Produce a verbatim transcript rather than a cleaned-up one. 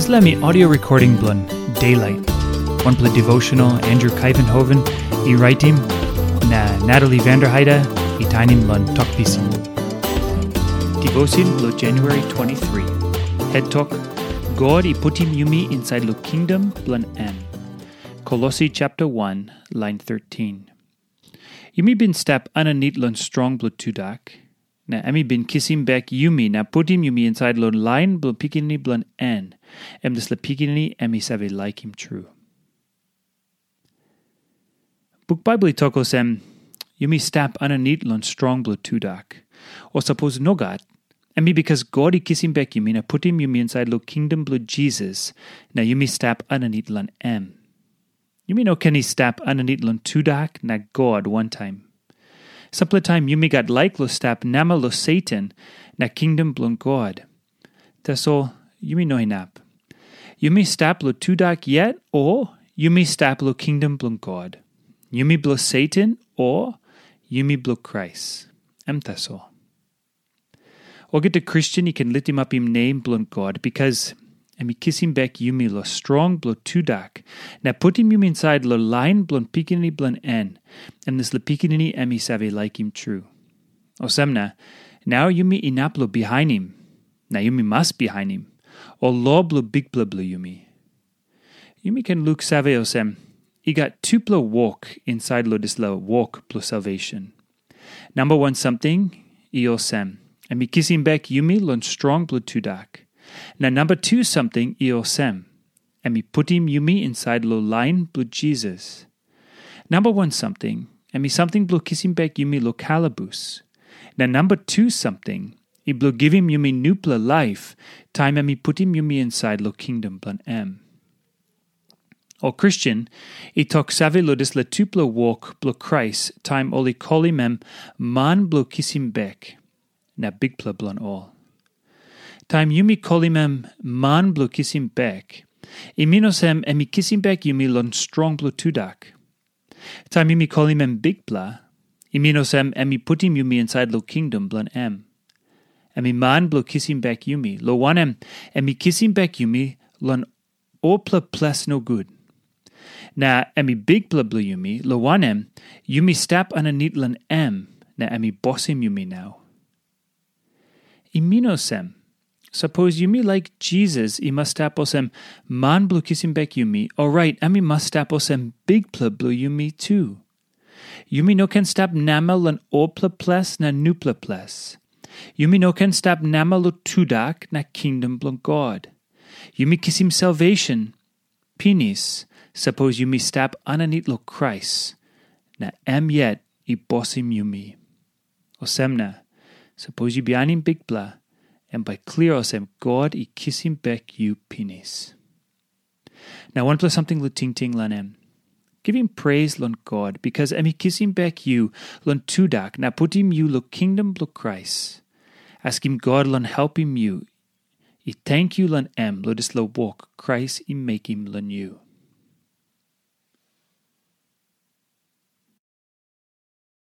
Dispela mi audio recording bilong Daylight, wanpela devotional Andrew Kaivenhoven i raitim, na Natalie Vanderheide i tainim long Tok Pisin. Devotion bilong January twenty-three. Head Tok, God i putim yumi insait long kingdom bilong em. Kolosi chapter one, line thirteen. Yumi bin stap aninit long strong bilong tudak, na em i bin kisim bek yumi na putim yumi insait long lain bilong Pikinini bilong en, em dispela Pikinini em i save laikim tru. Buk Baibel i tok olsem, yumi stap aninit long strong bilong tudak. O sapos nogat, em i bikas God i kisim bek yumi na putim yumi insait long kingdom bilong Jisas, na yumi stap aninit long em. Yumi no ken i stap aninit long tudak na God wantaim. Sampela taim yumi gat laik long stap namel long Satan na kingdom bilong God. Tasol yumi no inap. Yumi stap long tudak yet, o yumi stap long kingdom bilong God. Yumi bilong Satan, o yumi bilong Krais. Em tasol. Olgeta Kristen i ken litimapim nem bilong God, bikas em i kisim bek yumi long strong bilong tudak, na putim yumi insait long lain bilong Pikinini bilong en, em dispela Pikinini em i save laikim tru. Olsem na, nau yumi inap long bihainim, na yumi mas bihainim, ol lo bilong Bikpela bilong yumi. Yumi ken luksave olsem, i gat tupela wok insait long dispela wok bilong salvation. Namba wan samting i olsem, em i kisim bek yumi long strong bilong tudak. Na namba tu samting i olsem, em i putim yumi insait long lain bilong Jisas. Namba wan samting, em i samting bilong kisim bek yumi long kalabus. Na namba tu samting, i bilong givim yumi nupela laip, taim em i putim yumi insait long kingdom bilong em. Ol Kristen i tok save long dispela tupela wok bilong Krais, taim ol i kolim em man bilong kisim bek, na Bikpela bilong ol. Taim yumi kolim em man bilong kisim bek, i min olsem em i kisim bek yumi long strong bilong tudak. Taim yumi kolim em Bikpela, i min olsem em i putim yumi insait long kingdom bilong em. Em i man bilong kisim bek yumi, long wanem, em i kisim bek yumi long olpela ples nogut. Na em i Bikpela bilong yumi, long wanem, yumi stap aninit long em, na em i bosim yumi nau. I min olsem, sapos yumi laik Jisas i mas stap olsem man bilong kisim bek yumi, orait em i mas stap olsem Bikpela bilong yumi tu. Yumi no ken stap namel long olpela ples na nupela ples. Yumi no ken stap namel long tudak na kingdom bilong God. Yumi kisim salvation pinis, sapos yumi stap aninit long Krais, na em yet i bosim yumi. Olsem na, sapos yu bihainim Bikpela, em bai klia olsem God i kisim bek yu pinis. Na wanpela samting long tingting long em. Givim pres long God, bikas em i kisim bek yu long tudak na putim yu long kingdom bilong Krais. Askim God long helpim yu i tenkyu long em long dispela wok Krais i mekim long yu.